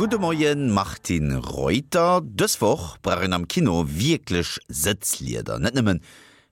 Gudde Moien Martine Reuter. Dës Woch brauch een am Kino wierklech Sëtzlieder. Net nëmmen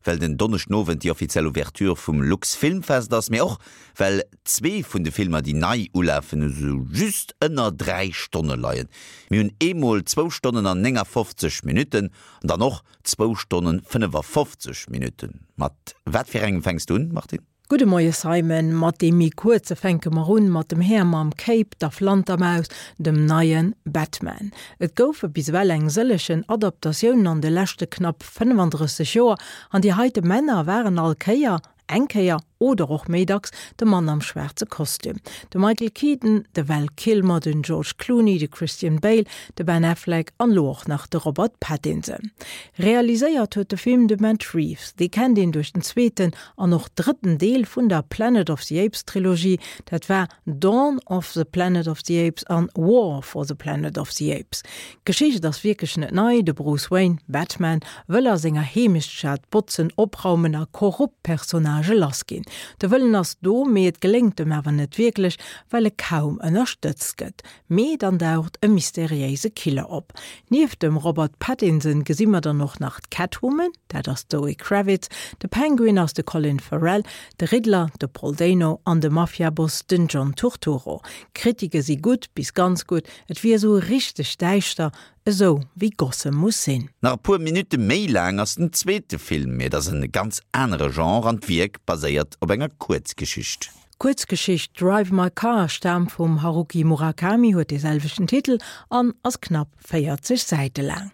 well den Donneschdenowend déi offiziell Ouverture vum Luxfilmfest ass, mee och well zwee vun de Filmer déi nei ulafen esou just ënner 3 Stonne leien. Mir hunn eemol zwou Stonnen an 59 Minutten an dann och zwou Stonnen 55 Minutten. Mat wat fir engem fänks du un, Martine? Gudde Moie Simon, mat deem méi kuerze fänke mer un, mat dem Här mam Cape, der Flantermaus, dem neie Batman. Et goufe bis ewell eng sëllegen Adaptatiounen an de leschte knapp 35 Joer, an déi heite Männer waren all Kéier, eng Kéier oder och méi dacks, de Mann am schwaarze Kostüm. De Michael Keaton, de Val Kilmer, den George Clooney, de Christian Bale, de Ben Affleck an elo och nach de Robert Pattinson. Realiséiert huet de Film de Matt Reeves, dee kennt een duerch den zweeten an och drëtten Deel vun der Planet of the Apes Trilogie, dat war Dawn of the Planet of the Apes an War for the Planet of the Apes. D'Geschicht ass wierklech net nei, de Bruce Wayne, Batman, wëll a senger Heemechtsstad botzen, opraumen a korrupt Personnagë lass ginn. De Wëllen ass do, mee et geléngt em awer net wierklech, well e kaum ënnerstëtzt gëtt. Mee dann daucht e mysteriéise Killer op. Nieft dem Robert Pattinson gesi mer dann och nach d'Catwoman, dat ass d'Zoe Kravitz, de Penguin ass de Colin Farrell, de Riddler de Paul Dano an de Mafiaboss den John Turturro. D'Kritike si gutt bis ganz gutt, et wier esou richteg däischter, esou wéi Gotham muss sinn. Nach e puer Minutte méi laang ass den zweete Film, mee et ass en ganz anere Genre an d'Wierk baséiert op enger Kuerzgeschicht. D'Kuerzgeschicht Drive My Car staamt vum Haruki Murakami, huet dee selwechten Titel an ass knapp 40 Säite laang.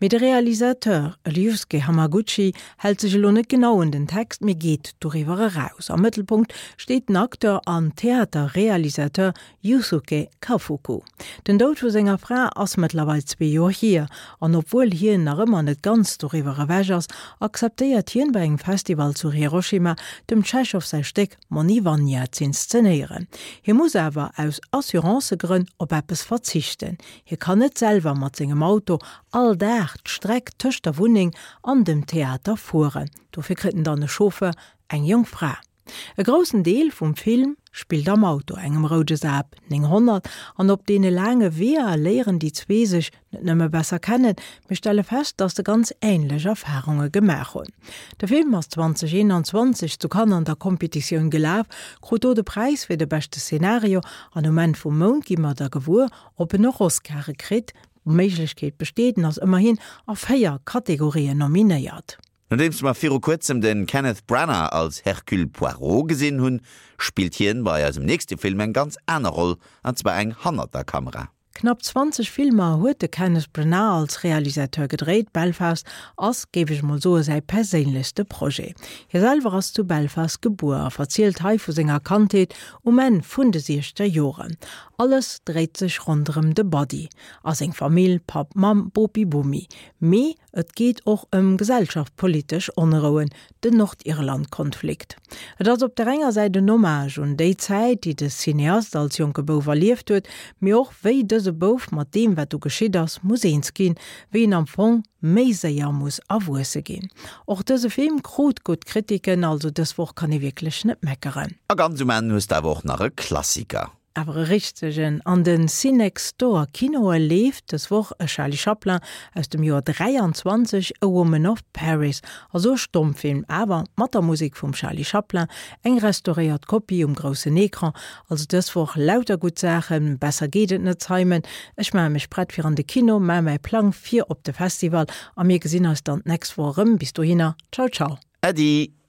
Mee de Realisateur Ryusuke Hamaguchi hält sech elo net genau un den Text, mee geet doriwwer eraus. Am Mëttelpunkt steet den Acteur an Theaterrealisateur Yusuke Kafuku. Den Doud vu senger Fra ass mëttlerweil zwee Joer hier, an obwuel hien nach ëmmer net ganz doriwwer ewech ass, akzeptéiert hien bei engem Festival zu Hiroshima dem Tschechow säi Stéck Moni Vanya z'inszenéieren. Hie muss awer aus Assurancëgrënn op eppes verzichten, hie kann net selwer mat sengem Auto all Dag d'Streck tëscht der Wunneng an dem Theater fueren. Dofir kritt en dann e Chauffeur, eng jonk Fra. E groussen Deel vum Film spillt am Auto, engem roude Saab 900, an op deene laange Weeër léieren déi zwee sech net nëmme besser kennen, mee stelle fest, dass se ganz änlech Erfarunge gemaach hunn. De Film ass 2021 zu Cannes an der Competitioun gelaf, krut do de Präis fir de beschte Szenario an um Enn vum Mount gi mer da gewuer, ob en och Oscare kritt. D'Méiglechkeet besteet, en ass ëmmerhin a 4 Kategorien nominéiert. Nodeems mer viru kuerzem de Kenneth Branagh als Hercule Poirot gesinn hunn, spillt hien bei eisem nächste Film eng ganz aner Roll, an zwar eng hannert der Kamera. Knapp 20 Filmer huet de Kenneth Branagh als Realisateur gedréit. Belfast ass, géif ech mol soe, säi perséinlechste Projet. Hie selwer ass zu Belfast gebuer a verzielt hei vu senger Kandheet um Enn vun de siechzeger Joren. Alles dréit sech ronderëm de Buddy a seng Famill, Papp, Mamm, Bopi, Bomi. Mee Et geet och ëm gesellschaftpolitesch Onrouen, den Nordirland-Konflikt. Et ass op der enger Säit en Hommage un déi Zäit, déi de Cineast als jonke Bouf erlieft huet, mee och wéi dëse Bouf mat deem, wat do geschitt ass, muss eens ginn, wéi en am Fong méi séier muss erwuesse ginn. Och dëse Film krut gutt Kritiken, also dës Woch kann ee wierklech net meckeren. A ganz um Enn hues de awer och nach e Klassiker. Awer e richtegen. An den Cinextdoor Kinoe leeft dës Woch e Charlie Chaplin aus dem Joer 23, A Woman of Paris. Also e Stommfilm, awer mat der Musek vum Charlie Chaplin, eng restauréiert Kopie um groussen Ecran. Also dës Woch lauter gutt Saachen, besser geet et net Simon. Ech maache mech prett fir an de Kino, maache mäi Plang fir op de Festival a mir gesinn eis dann d'nächst Woch erëm. Bis dohinner, ciao ciao. Äddi!